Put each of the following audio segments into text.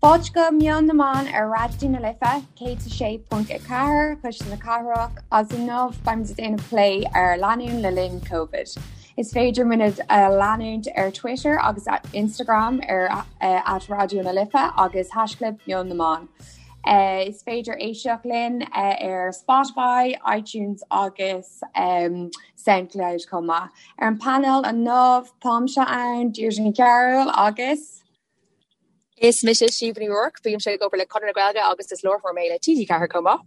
Fáilte go Meon na mBan ar Raidió na Life 106.4, Cuisle na Cathrach, agus inniu beimid ag déanamh plé ar lánúin le linn Covid. Is féidir muid a leanúint ar Twitter agus Instagram ar at Raidió na Life agus haischlib Meon na mBan. Is féidir éisteacht linn ar Spotify, iTunes agus Soundcloud chomh maith. Ar an bpainéal inniu táimse ann, Deirdre Ní Chearúil agus. Is mise Síomha Ní Ruairc, bímse ag obair le Conradh na Gaeilge agus is láithreoir mé le TG4 chomh maith.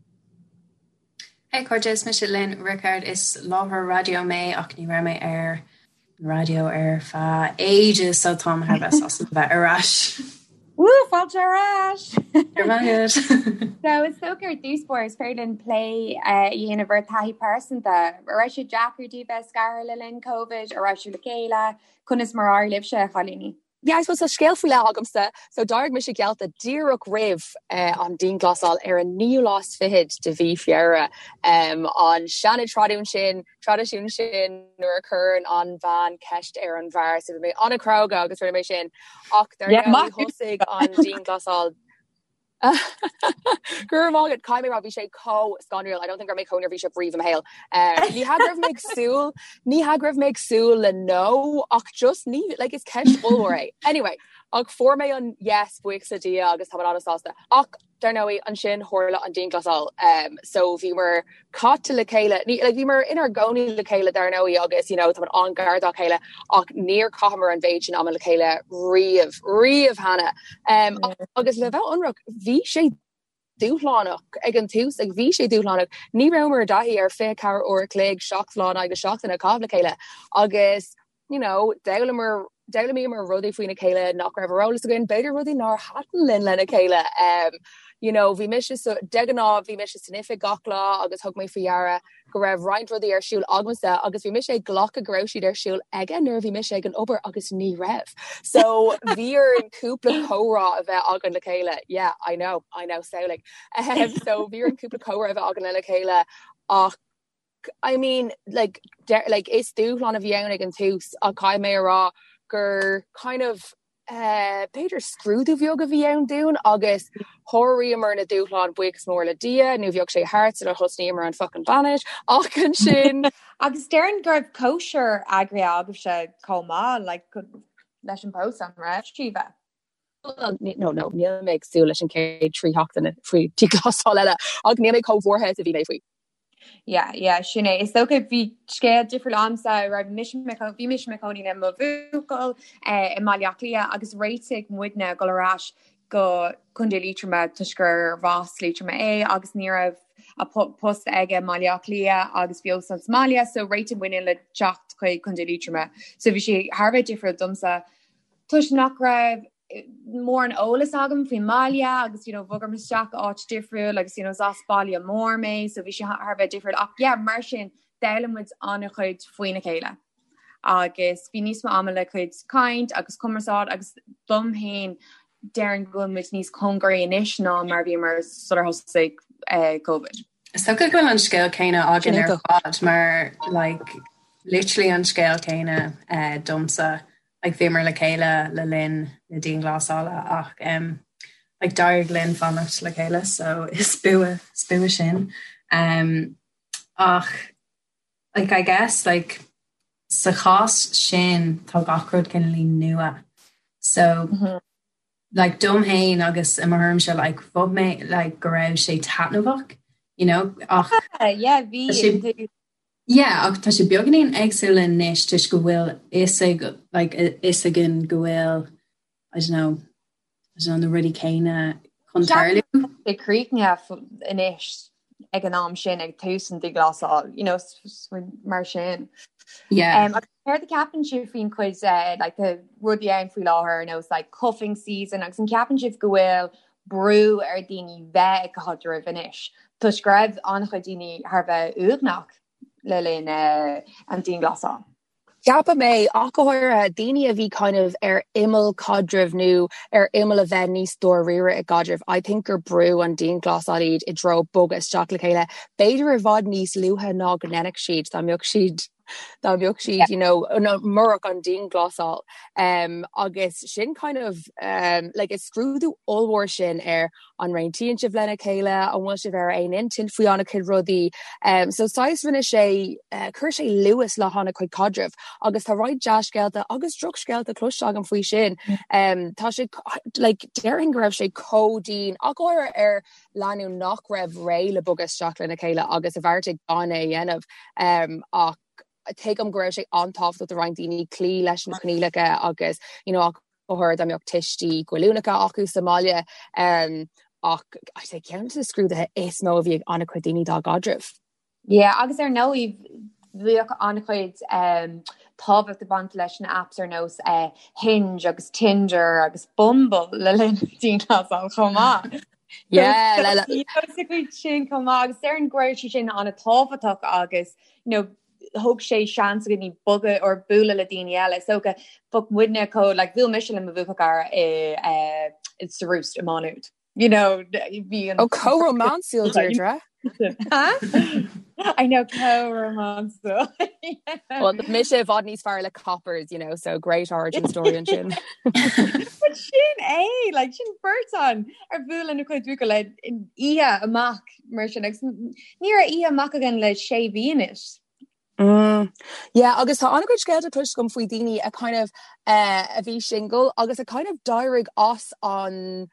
Hey cairde, is mise Lynn Rickard, is láithreoir raidió mé ach ní raibh mé ar an raidió ar feadh ages so táim thar bheith sásta bheith ar ais. Woo, fáilte ar ais! Go raibh maith agat. So is dócha ar dtús báire is féidir linn plé a dhéanamh ar taithí pearsanta. An raibh sé deacair daoibh bheith scartha le linn Covid? An raibh sibh le chéile? Conas mar a d'éirigh libhse, a chailíní? Yeah, I suppose tá scéal faoi leith agamsa. So d'éirigh mise geallta díreach roimh an dianghlasáil ar an naoú lá is fichead de mhí Feabhra. An seana-traidisiún sin, traidisiún sin nuair a chuireann an bhean ceist ar an bhfear. So bhí mé an-chróga agus rinne mé sin. Ach dar ndóigh thosaigh an dianghlasáil Go raibh maith agat, caithfidh mé a rá, bhí sé chomh scanrúil, I don't think go raibh mé chomh neirbhíseach riamh i mo shaol. Ní hea go raibh mé ag súil, ní hea go raibh mé ag súil le no, ach just ní, like is ceist ollmhór é. Anyway, ach fuair mé an yes, buíochas le Dia agus tá mé an-sásta. Ach dar ndóigh, ansin tharla an dianghlasáil, so bhíomar caite le chéile, ní, like bhíomar inár gcónaí le chéile dar ndóigh agus you know táimid an-ghar dá chéile ach níor chaitheamar an mhéid sin ama le chéile riamh, riamh cheana. Um, agus le bheith ionraic, bhí sé dúshlánach ag an tús, like bhí sé dúshlánach. Ní rabhamar i dtaithí ar 24 uair a chloig, 7 lá in aghaidh na seachtaine a chaitheamh le chéile agus you know, d'fhoghlaimíomar, d'fhoghlaimíomar rudaí faoina chéile nach raibh ar eolas againn, b'fhéidir rudaí nár thaitin linn lena chéile. Um, you know, bhí mise so, de ghnáth bhí mise san oifig gach lá agus thug mé faoi deara go raibh roinnt rudaí ar siúl agamsa agus bhí mise ag glacadh go raibh siad ar siúl aige nuair a bhí mise ag an obair agus ní raibh. So bhí orainn cúpla comhrá a bheith againn le chéile. Yeah, I know, I know, samhlaigh. Um, so bhí orainn cúpla comhrá a bheith againn lena chéile ach I mean, like, like, is dúshlán a bhí ann ag an tús ach caithfidh mé a rá gur kind of eh, b'fhéidir scrúdú bheag a bhí ann dúinn agus sháraíomar na dúshláin buíochas mór le Dia nó bheadh sé thart sular thosnaíomar an fucking bainis ach ansin Agus déarfainn go raibh cóisir eagraithe agaibhse chomh maith like, leis an bpósadh, an raibh, Síomha? No, no, níl mé ag súil leis an chéad 3 sheachtaine faoi dianghlasáil eile ach níl mé chomh buartha is a bhí mé faoi. Yeah, yeah, sin é. Is dócha bhí scéal difriúil agamsa, raibh mise i mo bhí mise i mo chónaí le mo bhuachaill eh, i mBaile Átha Cliath agus réitigh muidne dul ar ais go Contae Liatroma toisc gur as Liatroim é agus ní raibh a post aige i mBaile Átha Cliath agus bhí óstán sa mbaile so réitigh muidne le teacht chuig Contae Liatroma. So bhí sé thar a bheith difriúil domsa toisc nach raibh mórán eolas agam faoin mbaile agus you know bhogamar isteach áit difriúil agus you know is as baile mór mé so bhí sé thar a bheith difriúil ach yeah mar sin d'fhoghlaim muid an-chuid faoina chéile agus bhí níos mó ama le cuid caint agus cumarsáid agus dom féin déarfainn go bhfuil muid níos cóngaraí anois ná mar bhíomar sular thosaigh eh, Covid. Is dócha go bhfuil an scéal céanna againn ar fad mar like literally an scéal céanna eh, domsa like bhíomar le chéile le linn na dianghlasála ach um, like d'éirigh linn fanacht le chéile so is bua is bua sin um, ach like I guess like sa chás sin tá gach rud cineáilín nua so mm -hmm. like dom féin agus i mo thuairimse like mhothaigh mé like go raibh sé taitneamhach you know ach yeah bhí Yeah, ach tá sé beagáinín éagsúil anois toisc go bhfuil fhios ag, like, fhios againn go bhfuil, I don't know, I don't know, na rudaí céanna chun tarlú. Sé críochnaithe anois ag an am sin ag tús an dianghlasáil, you know, mar sin. Yeah. Um, agus céard a ceapann sibh faoin chuid uh, like, the rudaí ann faoi láthair ar nós like, cuffing season agus an ceapann sibh go bhfuil brú ar daoine bheith ag caidreamh anois, toisc go raibh an-chuid daoine thar a bheith uaigneach le linn an dianghlasáil. Ceapaim é, ach go háirithe daoine a bhí kind of ar imeall caidrimh nó ar imeall a bheith níos dáiríre i gcaidreamh, I think gur brú an dianghlasáil iad i dtreo bogadh isteach le chéile, b'fhéidir i bhfad níos luaithe ná go ndéanfadh siad dá mbeadh siad. Dá mbeadh siad, you know, murach an dianghlasáil. Um, agus sin kind of um, like is scrúdú ollmhór sin ar an réitíonn sibh lena chéile, an bhfuil sibh ar aon intinn faoi an-chuid rudaí. Um, so saghas rinne sé uh, chuir sé luas le han-chuid caidrimh agus tá roinnt dea-scéalta agus drochscéalta cloiste agam faoi sin. Um, tá sé like, déarfainn go raibh sé chomh dian ach go háirithe ar lánúin nach raibh réidh le bogadh isteach lena chéile agus a bheartaigh gan é a dhéanamh um, ach tuigim go raibh sé an-tábhachtach do roinnt daoine cloí leis na coinníollacha agus you know, ach go háirithe dá mbeadh tuistí goilliúnacha acu sa mbaile um, ach I say ceann de na scrúduithe is mó a bhí ag an-chuid daoine dá gcaidrimh. Yeah, agus ar ndóigh bhíodh an-chuid um, tábhacht ag baint leis na apps ar nós uh, Hinge agus Tinder agus Bumble le linn dianghlasáil chomh maith. Yeah, le le cuid sin chomh maith agus déarfainn go raibh sé sin an-tábhachtach agus you know, thug sé seans do dhaoine bogadh or bualadh le daoine eile. So go bheadh muidne chomh like bhuail mise le mo bhuachaill cara i uh, sa Roost i Má Nuad. You know, bhí an Ó chomh rómánsúil Deirdre. I know chomh rómánsúil. Well, mise i bhfad níos fearr le coppers, you know, so great origin story ansin. But sin é, like, sin beirt againn ar bhuail lena cuid buachaill le oíche amach mar sin agus ní raibh oíche amach againn le sé mhí anois. Mm. Yeah, agus tá an-chuid scéalta cloiste agam faoi daoine a kind of uh, a bhí single agus a kind of d'éirigh as an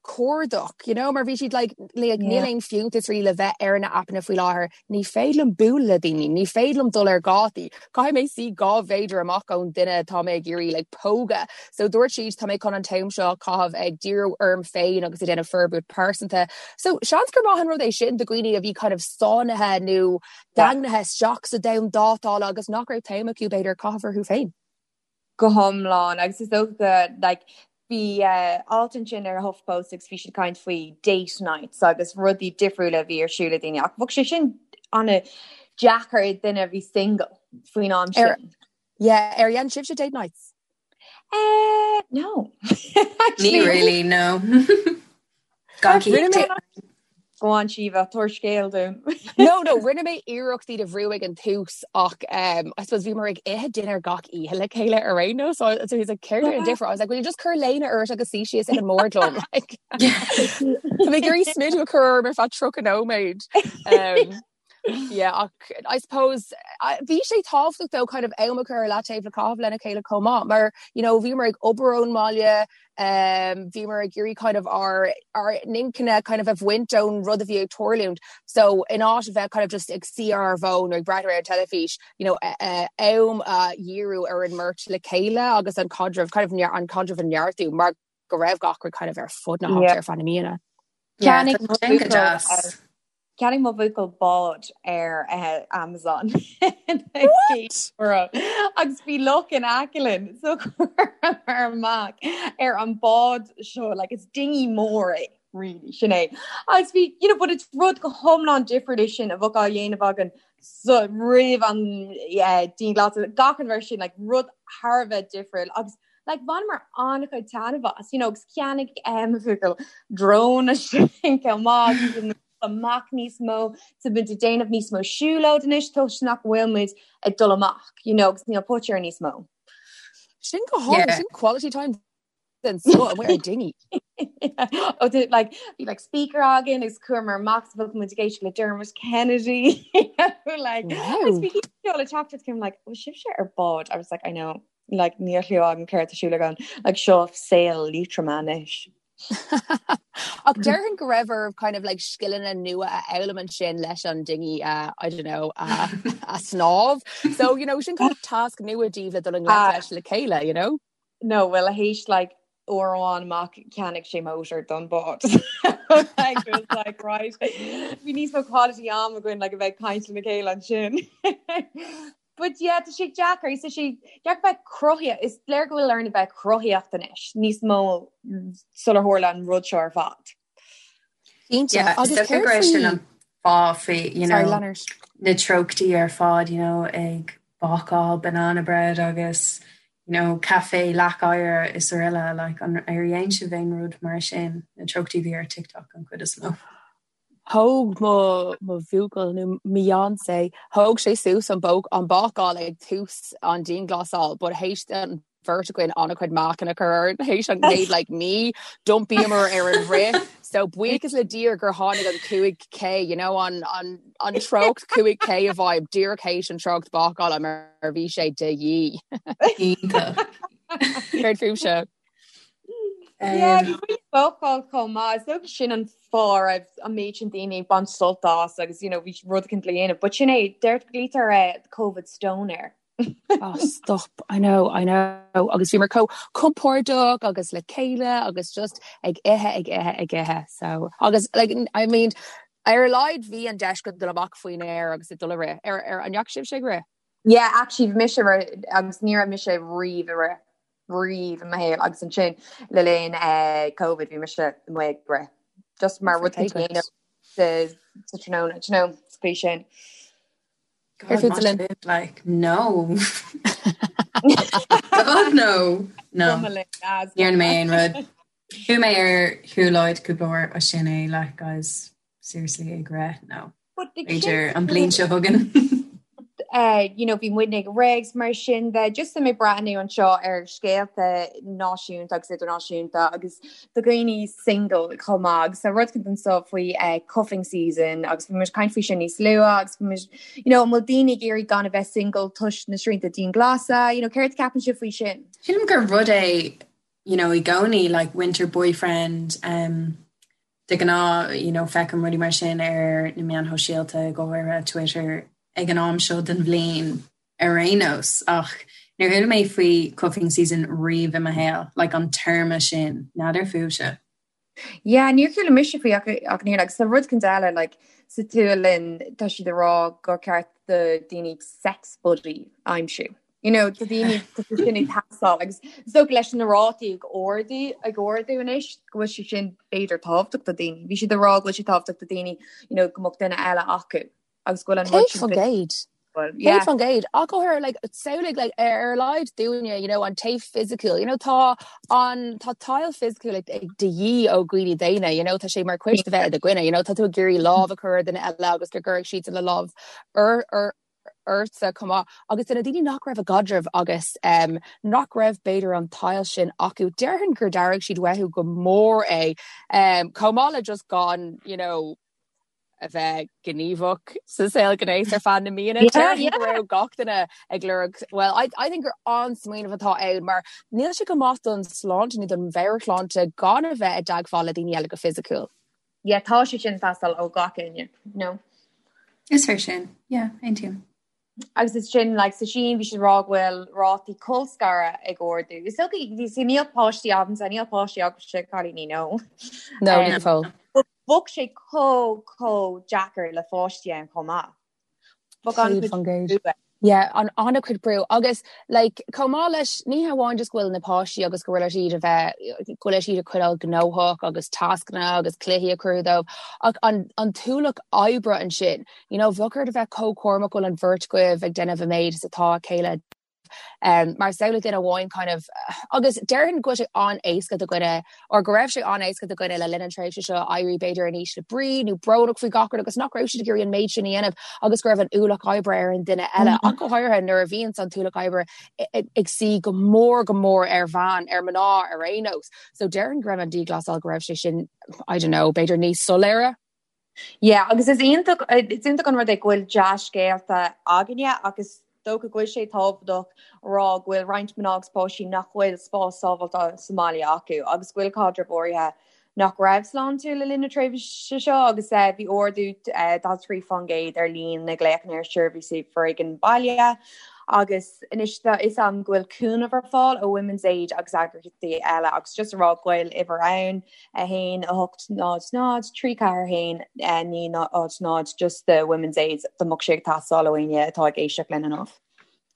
cuardach, you know, mar bhí siad like, like yeah. níl aon fiúntas really le bheith ar na aipeanna faoi láthair, ní féidir liom bualadh le daoine, ní féidir liom dul ar dhátaí, caithfidh mé suí 2 mhéadar amach ón duine atá mé ag iarraidh like, pógadh. So dúirt siad tá mé chun an t-am seo a chaitheamh ag díriú orm féin agus ag déanamh forbairt pearsanta. So seans gur maith an rud é sin do dhaoine a bhí kind of sáinnithe nó daingnithe isteach sa domhan dátála agus nach raibh t-am acu b'fhéidir caitheamh orthu féin. Go hiomlán agus is dócha go like bhí uh, alt ansin ar HuffPost agus bhí siad ag caint faoi date nights agus rudaí difriúla a bhí ar siúl ag daoine ach bheadh sé sin an-deacair ag duine a bhí single faoin am sin. Yeah, ar dhein sibhse date nights? Uh, no. Ní really, no. Go on Síomha, tabhair scéal dúinn. No, no, rinne mé iarracht iad a bhrú ag an tús ach um, I suppose bhíomar ag ithe dinnéar gach oíche le chéile ar aon nós, so, so he's like, céard é an difear? I was like, will you just cur léine ort agus suí síos ag an mbord liom? Like, Tá mé ag iarraidh smideadh a chur orm ar feadh 30 nóiméad. Um, Yeah, ach I suppose bhí sé tábhachtach though kind of am a chur ar leataobh le caitheamh lena chéile chomh maith mar you know bhíomar ag obair ón mbaile um, bhíomar ag iarraidh kind of ár ár n-intinne kind of a bhaint ón rud a bhí ag tarlúint so in áit a bheith kind of just ag suí ar ár bhfón nó ag breathnú ar an teilifís you know am a dhíriú ar an mbeirt le chéile agus an caidreamh kind of an caidreamh a neartú mar go raibh gach rud kind of ar fud na háite ar feadh na míonna. Yeah, tá go deas. Cheannaigh mo bhuachaill bád ar Amazon. What? Agus bhí loch in aice linn so chuamar amach ar an bád seo like is dinghy mór é really sin é. Agus bhí you know but it's rud go hiomlán difriúil é sin a bheadh á dhéanamh againn so roimh an dianghlasáil gach rud mar sin like rud thar a bheith difriúil agus like bhaineamar an-chuid taitneamh as, you know, agus cheannaigh eh, mo bhuachaill drone ansin chomh maith agus amach níos mó, tá muid ag déanamh níos mó siúlóid anois toisc nach bhfuil muid ag dul amach, you know, agus níl póit air níos mó. Sin go hálainn, Yeah. sin quality time den scoth amuigh ar dinghy. Oh, did, like, bhí like speaker againn agus chuamar amach so bheadh muid ag éisteacht le Dermot Kennedy. like, Wow. agus bhí le teacht came like, bhfuil sibhse ar bád? I was like, I know. Like níl a fhios agam céard tá ar siúl agam, like seo saol Liatroma anois. Ach déarfainn go raibh oraibh kind of like scileanna nua a fhoghlaim ansin leis an dinghy a, I don't know, a, a snámh. So, you know, sin kind of tasc nua daoibh le dul i ngleic leis le chéile, you know? No, well théis like uair amháin amach cheannaigh sé motor don bád. Like, it was like, right, bhí níos mó quality am againn like a bheith ag caint lena chéile ansin. But yeah, tá sé deacair, tá sé deacair bheith cruthaíoch, is léir go bhfuil orainn a bheith cruthaíoch anois, níos mó sular tharla an rud seo ar fad. Cinnte, Yeah, agus is dócha céard go raibh sin faoi... an fáth faoi, you Sorry, know, Leonard. na treochtaí ar fad, you know, ag bácáil banana bread agus, you know, caife leac oighir is araile, like, an ar dhein sibh aon rud mar sin, na treochtaí a bhí ar TikTok an chuid is mó. Thóg mo mo bhuachaill nó mo fhiancé, thóg sé suas an bóc an bácáil ag tús an dianghlasáil but théis an bheirt againn an-chuid meáchan a chur orainn théis an chéad like mí d'iompaíomar ar an rith so buíochas le Dia gur tháinig an 5K you know an an an treocht 5K i bhfeidhm díreach théis an treocht bácála mar bhí sé de dhíth. Iontach. Céard fúibhse? Yeah, bhí muid ag bácáil chomh maith. Is dócha sin an fáth a raibh an méid sin daoine ag baint sult as agus you know bhí rud éicint le dhéanamh. But sin é, deir glaoitear eh, COVID stoner. Oh stop, I know, I know. Agus bhíomar chomh compordach agus le chéile agus just ag ithe, ag ithe, ag ithe. So, agus like, I mean, ar a laghad bhí an deis go dul amach faoin aer agus ag dul a rith. Ar, ar, an ndeachaigh sibhse ag rith? Yeah, actually bhí mise ag rith agus ní raibh mise riamh ag rith. riamh i mo shaol agus ansin le linn Covid bhí mise amuigh ag rith just mar rud a dhéanamh sa tráthnóna, do you know, sa chaoi sin. God, like, no. God, no. No. Ní dhearna mé aon rud. Chuaigh mé ar shiúlóid cúpla uair ach sin é, like, guys, seriously ag rith, no. B'fhéidir an bhliain seo chugainn. Uh, you know, bhí muidne ag rith mar sin de just mé ag breathnú anseo ar scéalta náisiúnta agus idirnáisiúnta agus do dhaoine single chomh maith agus tá rud éicint anseo faoi uh, cuffing season agus bhí muid ag caint faoi sin níos luaithe agus bhí muid you know, an bhfuil daoine ag iarraidh gan a bheith single toisc na srianta dianghlasála, you know, céard a ceapann sibh faoi sin? Sílim gur rud é you know, i gcónaí like winter boyfriend um, De ghnáth, you know, feicim rudaí mar sin ar na meáin shóisialta, go háirithe Twitter, ag an am seo den bhliain ar aon nós, ach níor chuala mé faoi cuffing season riamh i mo shaol, like an téarma sin, n'fheadar fúibhse. Yeah, níor chuala mise faoi ach ach níor agus tá rud éicint eile like sa tSualainn tá siad ag rá gur ceart do daoine sex buddy a aimsiú. You know, tá daoine tá sé sin ag teastáil agus is dócha leis na rátaí ag ardú ag ardú anois go bhfuil sé sin b'fhéidir tábhachtach do daoine. Bhí siad ag rá go bhfuil sé tábhachtach do daoine you know, go mbeadh duine eile acu agus go bhfuil an rud sin 100%. Well, yeah. 100% ach go háirithe like samhlaigh like ar a laghad dúinne you know an taobh fisiciúil you know tá an tá tadhall fisiciúil ag ag de dhíth ó dhaoine daonna you know tá sé mar chuid de bheith i do dhuine you know tá tú ag iarraidh lámh a chur ar duine eile agus go gcuirfidh siad a lámh ar ar ortsa chomh maith agus do na daoine nach raibh i gcaidreamh agus um, nach raibh b'fhéidir an tadhall sin acu, déarfainn gur d'airigh siad uathu go mór é um, chomh maith le just gan you know, a bheith gníomhach sa saol gnéis ar feadh na míonna. Déarfainn go raibh gach duine ag lorg well I, I think gur an-smaoineamh atá ann mar níl sé go maith don sláinte nó don mheabhairshláinte gan a bheith i dteagmháil le daoine eile go fisiciúil. Yeah, tá sé sin ag teastáil ó gach éinne, no? Is fíor sin, yeah, aontaím. Agus is sin, like, sa Sín bhí siad ag rá go bhfuil rátaí colscaradh ag ardú. Is dócha, you see, níl páistí agamsa, níl páistí agaibhse, cailíní, no. No, níl fós. Bheadh sé chomh, chomh deacair le pháistí ann chomh maith. 100%. Yeah, an an-chuid brú agus like chomh maith leis ní hamháin just go bhfuil na páistí agus go bhfuil siad a bheith go bhfuil siad a choinneáil gnóthach agus tascanna agus cluichí a chur dóibh ach an an t-ualach oibre ansin you know bheadh ort a bheith chomh cúramach go bhfuil an bheirt agaibh ag déanamh an méid is atá a chéile Um, mar samhlaigh duine amháin kind of agus déarfainn go bhfuil sé an-éasca do dhuine or go raibh sé an-éasca do dhuine le linn an tréimhse seo éirí b'fhéidir in ísle brí nó brónach faoi gach rud agus nach raibh siad ag iarraidh an méid sin a dhéanamh agus go raibh an ualach oibre ar an duine eile ach go háirithe nuair a bhíonn an t-ualach oibre ag suí go mór go mór ar bhean ar mná ar aon nós. So déarfainn go raibh an dianghlasáil go raibh sé sin I don't know, b'fhéidir níos soiléire. Yeah, agus is iontach, is iontach an rud é go bhfuil dea-scéalta againne agus dócha go bhfuil sé tábhachtach a rá go bhfuil roinnt mná agus páistí nach bhfuil spás sábháilte sa mbaile acu agus go bhfuil caidrimh áirithe nach raibh sláintiúil le linn na tréimhse seo agus bhí ardú 43% ar líon na nglaochanna ar sheirbhísí foréigin baile agus anois tá fhios agam go bhfuil cúnamh ar fáil ó Women's Aid agus eagraíochtaí eile agus just a rá go bhfuil uimhir ann 1, 8, 0, 0, 3, 4, 1, 9, 0, 0, just do Women's Aid dá mbeadh sé ag teastáil ó éinne atá ag éisteacht linn inniu.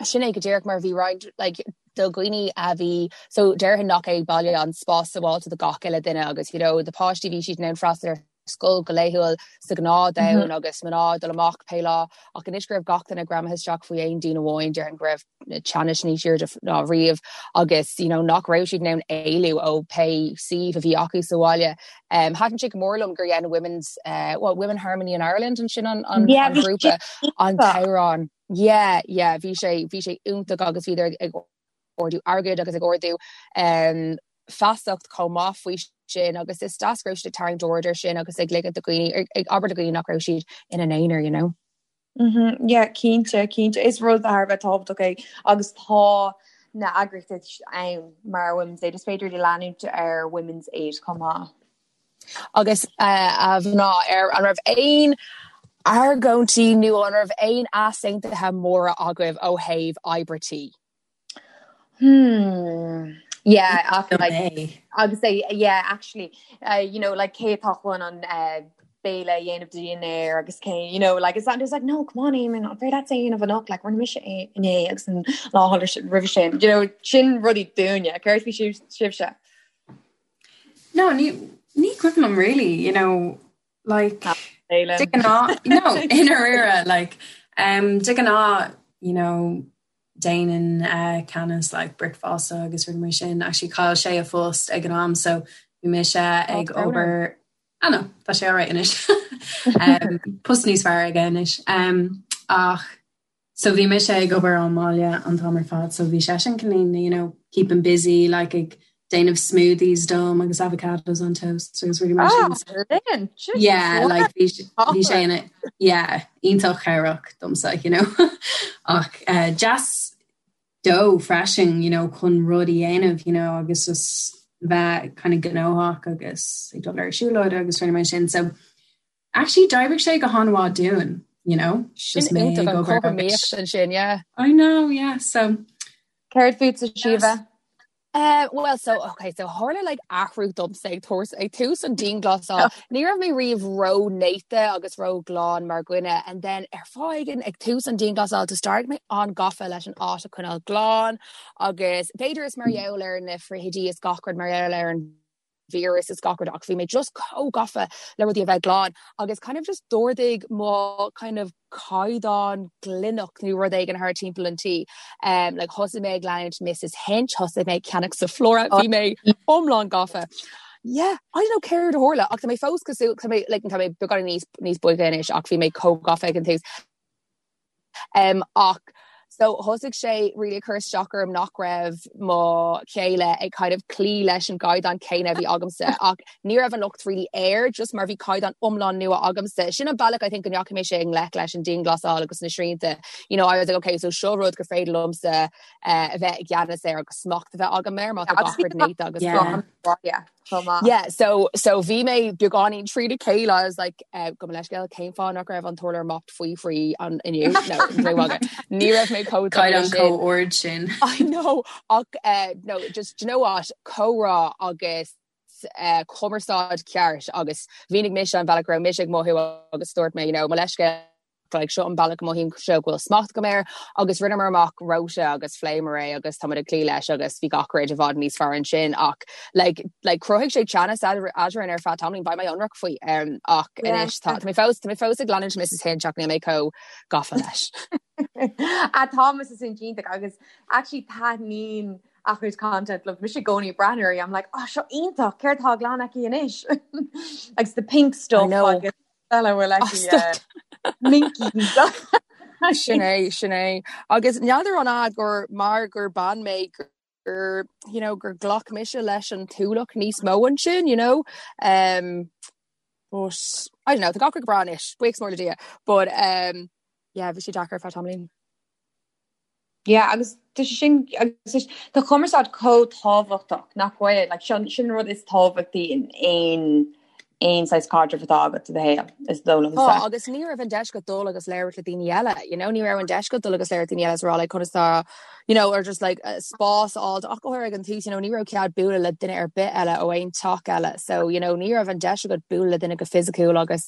Sin é go díreach mar bhí roinnt like, do dhaoine a bhí so déarfainn nach é baile an spás sábháilte do gach uile duine agus you know, do páistí bhí siad in ann freastal ar. scoil go laethúil sa ghnáthdomhan agus mná ag dul amach pé lá ach anois go raibh gach duine greamaithe isteach faoi aon díon amháin déarfainn go raibh na teannais níos airde ná riamh agus you know nach raibh siad in ann éalú ó pé suíomh a bhí acu sa bhaile. Um, Thaitin sé go mór liom gur dhein Women's uh, well, Women Harmony in Ireland an sin an, an, yeah, an grúpa an t-amhrán. Yeah, yeah, bhí sé bhí sé iontach agus bhíodar ag ardú airgid agus ag ardú um, feasacht chomh maith faoi sin agus is deas go raibh siad ag tarraingt aird ar sin agus ag ligint do dhaoine ag abair le daoine nach raibh siad ina n-aonar, you know. Mm-hmm. Yeah, cinnte, cinnte. Is rud thar a bheith tábhachtach é agus tá na eagraíochtaí ann mar Women's Aid. Is féidir le leanúint ar Women's Aid chomh maith. Agus a mhná, ar an raibh aon argóintí nó an raibh aon easaontuithe móra agaibh ó thaobh oibre tí? Hmm. Yeah, ach like, agus é yeah, actually uh, you know like cé atá chun an uh, béile a dhéanamh do dhinnéar agus cé you know like it's not just like no come on Eamon an féidir leat é a dhéanamh anocht like rinne mise é inné agus an lá roimhe sin you know sin rudaí dúinne céard faoi sibhse No, ní ní cuimhin liom really, you know, like de ghnáth no i ndáiríre like um, de ghnáth you know déanann uh, Canice like bricfeasta agus rudaí mar sin actually chaill sé a phost ag an am so bhí mise ag obair ah no tá sé alright anois um, post níos fearr aige anois um, ach So bhí mise ag obair ón mbaile an t-am ar fad so bhí seisean cineál you know keeping busy like ag déanamh smoothies dom agus avocados on toast agus rudaí mar sin. Ah, linn! Yeah, like bhí bhí sé ina yeah, iontach cabhrach domsa you know ach uh, deas dó freisin you know chun rud a dhéanamh you know agus just bheith kind of gnóthach agus ag dul ar siúlóid agus rudaí mar sin so Actually d'oibrigh sé go han-mhaith dúinn, you know, just mé ag obair agus ansin, yeah. I know, yeah, so. Céard fútsa, Síomha? Uh, well, so, okay, so tharla like athrú domsa ag tús ag tús an dianghlasáil. Ní raibh mé riamh ró-néata agus ró-ghlan mar dhuine and then ar fáth éigin ag tús an dianghlasáil just d'éirigh mé an-gafa leis an áit a choinneáil glan agus b'fhéidir is mar gheall ar na frithidí is gach rud mar gheall ar an víreas is gach rud ach bhí mé just chomh gafa le rudaí a bheith glan agus kind of just d'ardaigh mo kind of caighdeán glaineacht nó rud éigin thar timpeall an tí. Um, like thosaigh mé ag leanúint Mrs Hinch, thosaigh mé ag ceannach Zoflora, bhí mé iomlán gafa. Yeah, I don't know céard a tharla ach tá mé fós cosúil tá mé like, tá mé beagán níos níos boige anois ach bhí mé chomh gafa ag an tús. Um, ach so thosaigh sé really ag cur isteach orm nach raibh mo chéile ag kind of cloí leis an gcaighdeán céanna a bhí agamsa ach ní raibh an locht really air just mar bhí caighdeán iomlán nua agamsa. Sin an bealach I think go ndeachaigh mise i ngleic leis an dianghlasáil agus na srianta. You know, I was like, okay, so seo rud gur féidir liomsa uh, a bheith i gceannas air agus smacht a bheith agam air má tá gach rud néata agus yeah. Yeah. chomh maith. Yeah, so, so bhí mé beagáinín trína chéile, I was like, uh, gabh mo leithscéal, cén fáth nach raibh an t-urlár mopped faoi thrí an inniu? No, no bhaga. Ní raibh mé chomh dona Caighdeán sin. chomh ard sin. I know, ach uh, no, just, do you know what, comhrá agus uh, cumarsáid ceart agus mhínigh mise an bealach go raibh mise ag mothú agus dúirt mé, you know, mo leithscéal like seo an bealach a mothaím seo go bhfuil smacht agam air agus rinneamar amach rota agus phléamar é agus táimid ag cloí leis agus bhí gach rud i bhfad níos fearr ansin ach like like chruthaigh sé teannas eadrainn ar feadh tamaillín beidh mé ionraic faoi um, ach anois tá mé fós tá mé fós ag leanúint Mrs Hinch ach níl mé chomh gafa leis. A tá Mrs Hinch iontach agus actually taitníonn a chuid content liom mise i gcónaí ag breathnú uirthi I'm like oh seo iontach céard atá á ghlanadh aici anois agus the pink stuff agus eile bhfuil aici minkies. Sin é, sin é. Agus n'fheadar an ea gur mar gur bean mé gur you know, gur ghlac mise leis an t-ualach níos mó ansin, you know. Um, but I don't know, tá gach rud go breá anois, buíochas mór le Dia. But um, yeah, bhí sé deacair ar feadh tamaillín. Yeah, agus tá sé sin agus tá cumarsáid chomh tábhachtach nach bhfuil like, sin, sin rud is tábhachtaí in aon aon saghas caidreamh atá agat i do shaol is dóigh liomsa. Tá, agus ní raibh an deis agat dul agus labhairt le daoine eile, you know, ní raibh an deis agat dul agus labhairt le daoine eile is rá like conas tá, you know, or just like uh, spás a fháil ach go háirithe ag an tús, you know, ní raibh cead bualadh le duine ar bith eile ó aon teach eile, so you know, ní raibh an deis agat bualadh le duine go fisiciúil agus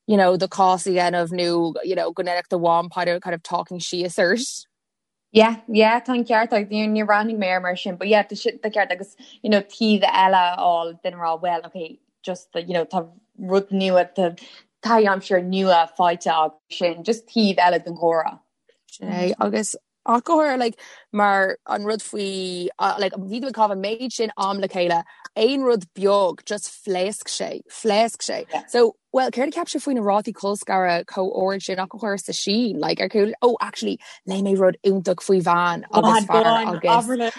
you know, do chás a dhéanamh nó, you know, go ndéanfadh do mham kind of, kind of talking síos ort. Yeah, yeah, tá an ceart agat, níor níor bhreathnaigh mé air mar sin, but yeah, tá sin, tá ceart agus, you know, taobh eile a fháil duine a rá, well, okay, just you know tá rud nua tá taithí aimsire nua faighte agat sin just taobh eile den chomhrá. Sin é agus ach go háirithe like mar an rud faoi like bhí tú ag caitheamh an méid sin am le chéile aon rud beag just phléasc sé phléasc sé yeah. so well céard a cheap sibh faoi na rátaí colscaradh chomh ard sin ach go háirithe sa Sín like ar cool oh actually léigh mé rud iontach faoi bhean agus fear agus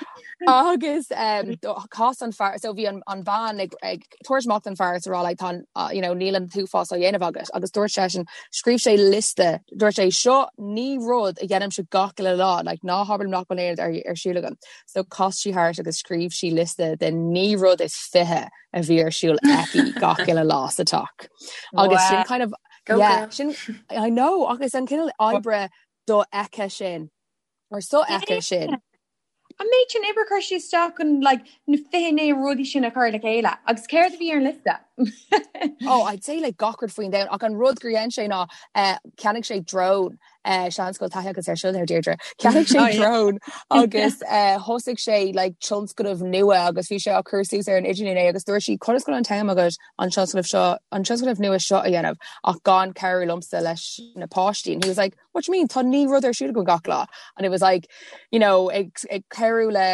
agus um, chas an fear so bhí an, an bhean ag, ag tabhairt amach don fear is a rá like tá you know níl an t-uafás á dhéanamh agat agus dúirt seisean scríobh sé liosta dúirt sé seo naoi rud a dhéanaimse gach uile lá like ná habair liom nach bhfuil aon rud ar, ar siúl agam so chas sí thart agus scríobh sí liosta de naoi rud is 20 a bhí ar siúl aici gach uile lá sa teach agus sin kind of Go yeah, girl. sin I know agus an cineál oibre dofheicthe sin or sofheicthe sin. An méid sin oibre a chuir sí isteach chun like, na 29 rudaí sin a chur le chéile agus céard a bhí ar an liosta? Oh, I'd say like gach rud faoin domhan ach an rud gur dhein sé ná eh, cheannaigh sé drone eh, seans go bhfuil taithí agat air seo there Deirdre. Cheannaigh sé oh, yeah. drone agus eh, thosaigh sé like tionscnamh nua agus bhí sé á cur suas ar an idirlíon é agus dúirt sí conas go bhfuil an t-am agat an tionscnamh seo an tionscnamh nua seo a dhéanamh ach gan cabhrú liomsa leis na páistí and he was like what do you mean tá naoi rud ar siúl agam gach lá and it was like you know ag ag cabhrú le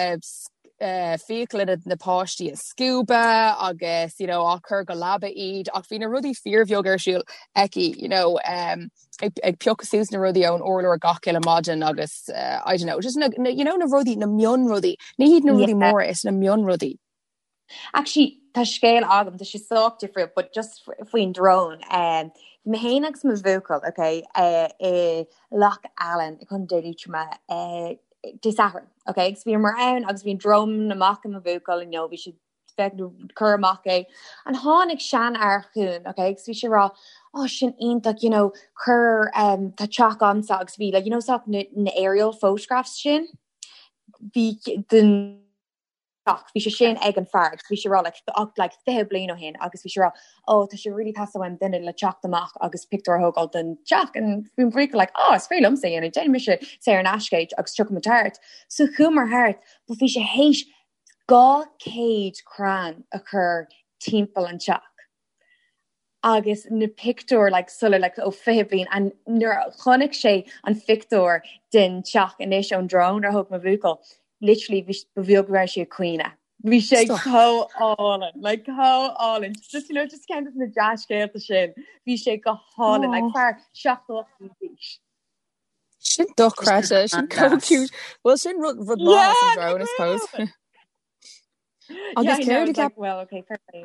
uh, fiacla na, na páistí a scuabadh agus you know á cur go leaba iad ach bhí na rudaí fíorbheag ar siúl aici you know um, ag, ag piocadh suas na rudaí ón urlár gach uile maidin agus uh, I don't know just na, na, you know na rudaí na mionrudaí ní hiad na rudaí Yeah. móra is na mionrudaí Actually, tá scéal agam, tá sé sách difriúil, but just faoin drone. Um, bhí mé féin agus mo bhuachaill, okay, uh, i Loch Allen i Contae Liatroma uh, Dé Sathairn, okay, agus bhíomar ann agus bhí an drone amach ag mo bhuachaill, you know, bhí sé ag cur amach é. And tháinig seanfhear chugainn, okay, agus bhí sé ag rá, oh, sin iontach, you know, cuir um, tá teach agamsa agus bhí, like, you know, sách na, na aerial photographs sin, bhí den ach bhí sé sin ag an fear agus bhí sé ag rá like ach like 20 bliain ó shin agus bhí sé ag rá oh tá sé really teastaíonn uaim duine le teacht amach agus pictiúr a thógáil den teach and bhí mo bhuachaill like oh is féidir liomsa a dhéanamh déanfaidh mise saor in aisce é agus tiocfaidh muid thart so chuamar thart but bhí sé théis 200 crann a chur timpeall an teach agus na pictiúir like sula like ó 20 bliain and nuair a chonaic sé an phictiúr den teach anois ón drone a thóg mo bhuachaill literally bhí ba bheag go raibh sé ag caoineadh. Bhí sé chomh álainn, like chomh álainn. Just you know just ceann de na dea-scéalta sin. Bhí sé go hálainn, like fear 78 d'aois. Sin dochreidte, sin chomh cute. Well sin rud rud maith as an drone, I suppose. Agus céard a cheap well okay fair play.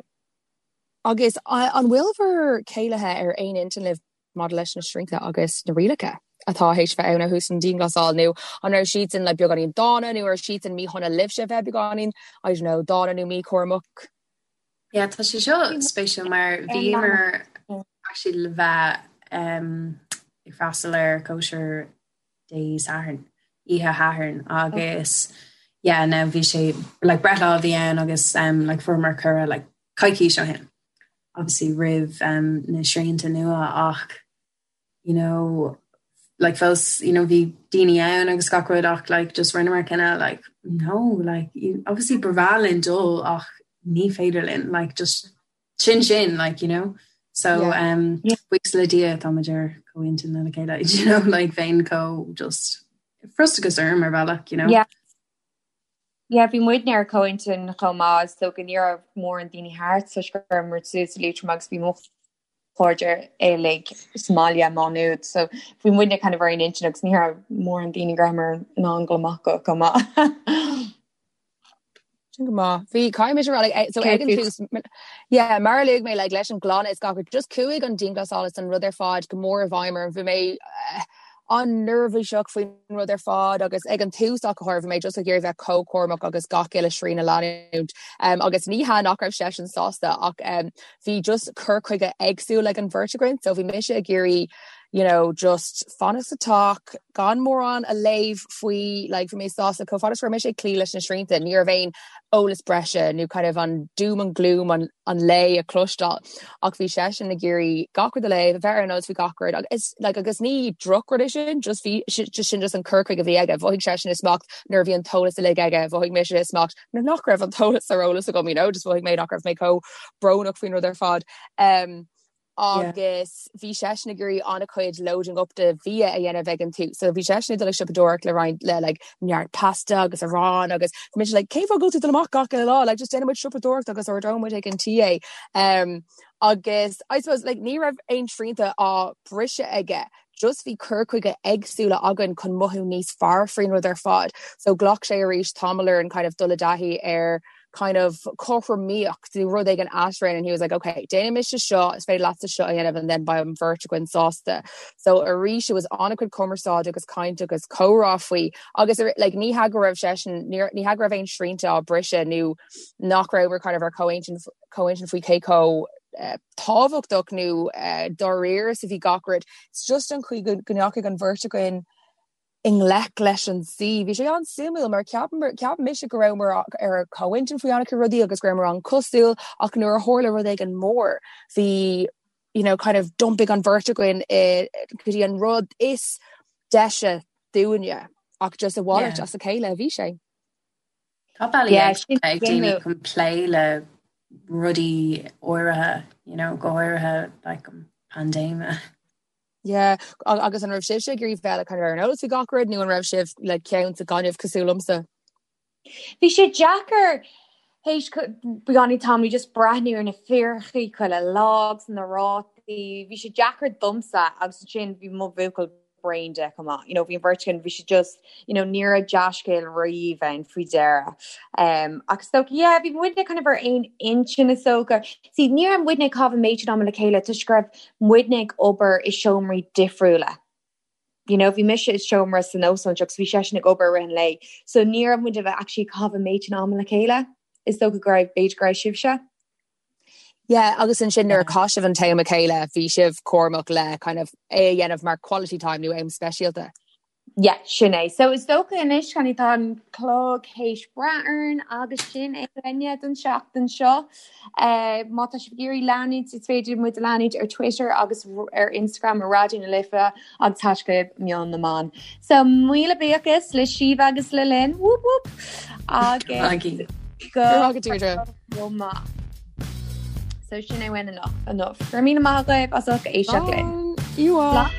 Agus an bhfuil bhur céilithe ar aon intinn libh maidir leis na srianta agus na rialacha atá théis bheith ann ó thús an dianghlasáil nó an raibh siadsan like beagáinín dána nó raibh siadsan míshona libhse bheith beagáinín I don't know dána nó míchúramach? Yeah, tá sé seo spéisiúil mar bhíomar actually le bheith um, ag freastal ar cóisir Dé Sathairn, oíche Shathairn agus yeah now bhí sé like breithlá a bhí ann agus um, like fuaireamar cuireadh like coicís ó shin obviously roimh um, na srianta nua ach you know like fós you know bhí daoine ann agus gach rud ach like just rinneamar cinneadh like no like you, obviously ba bhreá linn dul ach ní féidir linn like just sin sin like you know so yeah. um yeah. buíochas le Dia táimid ar comhintinn lena chéile you know like bheinn chomh just frustrachas orm ar bhealach you know yeah Yeah, bhí muidne ar comhintinn chomh maith so go ní raibh mórán daoine thart toisc go rabhamar suas i Liatroim agus bhí mo chairde uilig sa mbaile i Má Nuad so bhí muidne kind of ar aon intinn agus ní raibh mórán daoine go rabhamar in ann dul amach go chomh maith. Sin go maith. Bhí caithfidh mise a rá like eh, so ag an tús yeah, mar a luaigh mé like leis an gclann is gach rud just chuaigh an dianghlasáil is an rud ar fad go mór i bhfeidhm orm. Bhí mé eh, an-neirbhíseach faoin rud ar fad agus ag an tús ach go háirithe bhí mé just ag iarraidh bheith chomh cúramach agus gach uile srian a leanúint. Um, agus ní hea nach raibh seisean sásta ach um, bhí just cur chuige éagsúil ag an bheirt againn so bhí mise ag iarraidh. you know, just fanacht sa teach, gan mórán a léamh faoi, like, bhí mé sásta chomh fada is go raibh mise ag cloí leis na srianta, ní raibh aon eolas breise nó kind of an doom and gloom an, an lae a chloisteáil. Ach bhí seisean ag iarraidh gach rud a léamh, a bheith ar an eolas faoi gach rud agus like, agus ní drochrud é sin, just bhí just sin just an cur chuige a bhí aige. Mhothaigh seisean i smacht nuair a bhí an t-eolas uilig aige, mhothaigh mise i smacht nuair nach raibh an t-eolas ar eolas agam, you know, just mhothaigh mé nach raibh mé chomh brónach faoin rud ar fad. Um, agus bhí seisean ag iarraidh an-chuid loading up de bhia a dhéanamh ag an tús. So bhí seisean ag dul ag siopadóireacht le roinnt le like neart pasta agus arán agus bhí mise like cén fáth go bhfuil tú ag dul amach gach uile lá like just déanfaidh muid siopadóireacht agus ordóidh muid ag an tí é. Um, agus I suppose like ní raibh aon srianta á briseadh aige just bhí cur chuige éagsúla againn chun mothú níos fearr faoin rud ar fad. So ghlac sé arís tamall orainn kind of dul i dtaithí ar kind of cothromaíocht nó rud éigin eadrainn and he was like ok déanfaidh mise seo is féidir leatsa seo a dhéanamh and then beidh an bheirt againn sásta. So arís it was an-chuid cumarsáide agus caint agus comhrá faoi agus like ní hea go raibh seisean ní hea go raibh aon srianta á briseadh nó nach rabhamar kind of ar comhintinn comhintinn faoi cé chomh uh, tábhachtach nó uh, dáiríre is a bhí gach rud. It's just an chaoi go ndeachaigh an bheirt againn i ngleic leis an suí. Bhí sé an-suimiúil mar cheap cheap mise go rabhamar ar comhintinn faoi an-chuid rudaí agus go rabhamar an-cosúil ach nuair a tharla rud éigin mór bhí you know, kind of d'iompaigh an bheirt againn go dtí an rud is deise dúinne ach just a mhalairt as a chéile a bhí sé. Tá bealaí éagsúla ag daoine chun plé le rudaí áirithe, you know, go háirithe like an paindéime. Yeah, agus an raibh sibhse ag iarraidh bheith kind of ar an eolas faoi gach rud nó an raibh sibh le ceann sa gaineamh cosúil liomsa? Bhí sé deacair théis beagáinín tamaill just breathnú ar na figiúirí chuile lá agus na rátaí, bhí sé deacair domsa agus ansin bhí mo bhuachaill bréan de chomh maith. You know, bhí an bheirt againn, bhí sé just, you know, ní raibh dea-scéal riamh ann faoi deireadh. Um, ach is dócha, yeah, bhí muidne kind of ar aon intinn is dócha. See, ní raibh muidne ag caitheamh an méid sin ama le chéile toisc go raibh muidne ag obair i seomraí difriúla. You know, bhí mise i seomra san óstán agus bhí seisean ag obair i rith an lae. So ní raibh muid actually ag caitheamh an méid sin ama le chéile. Is dócha go raibh, b'fhéidir go raibh sibhse. Yeah, agus ansin nuair a chaith sibh an t-am le chéile, bhí sibh cúramach le kind of é a dhéanamh mar quality time nó am speisialta. Yeah, sin é. So is dócha anois kind of tá an clog théis breith orainn agus sin é uainne don seachtain seo. Uh, má tá sibh ag iarraidh leanúint, is féidir muid a leanúint ar Twitter agus ar Instagram ar Raidió na Life agus hashtag Meon na mBan. So míle buíochas le Síomha agus le Lynn. Whoop whoop. Agus go Deirdre. Go maith. So sin é uainn anocht. Go raibh míle maith agaibh as ucht éisteacht linn. Slán.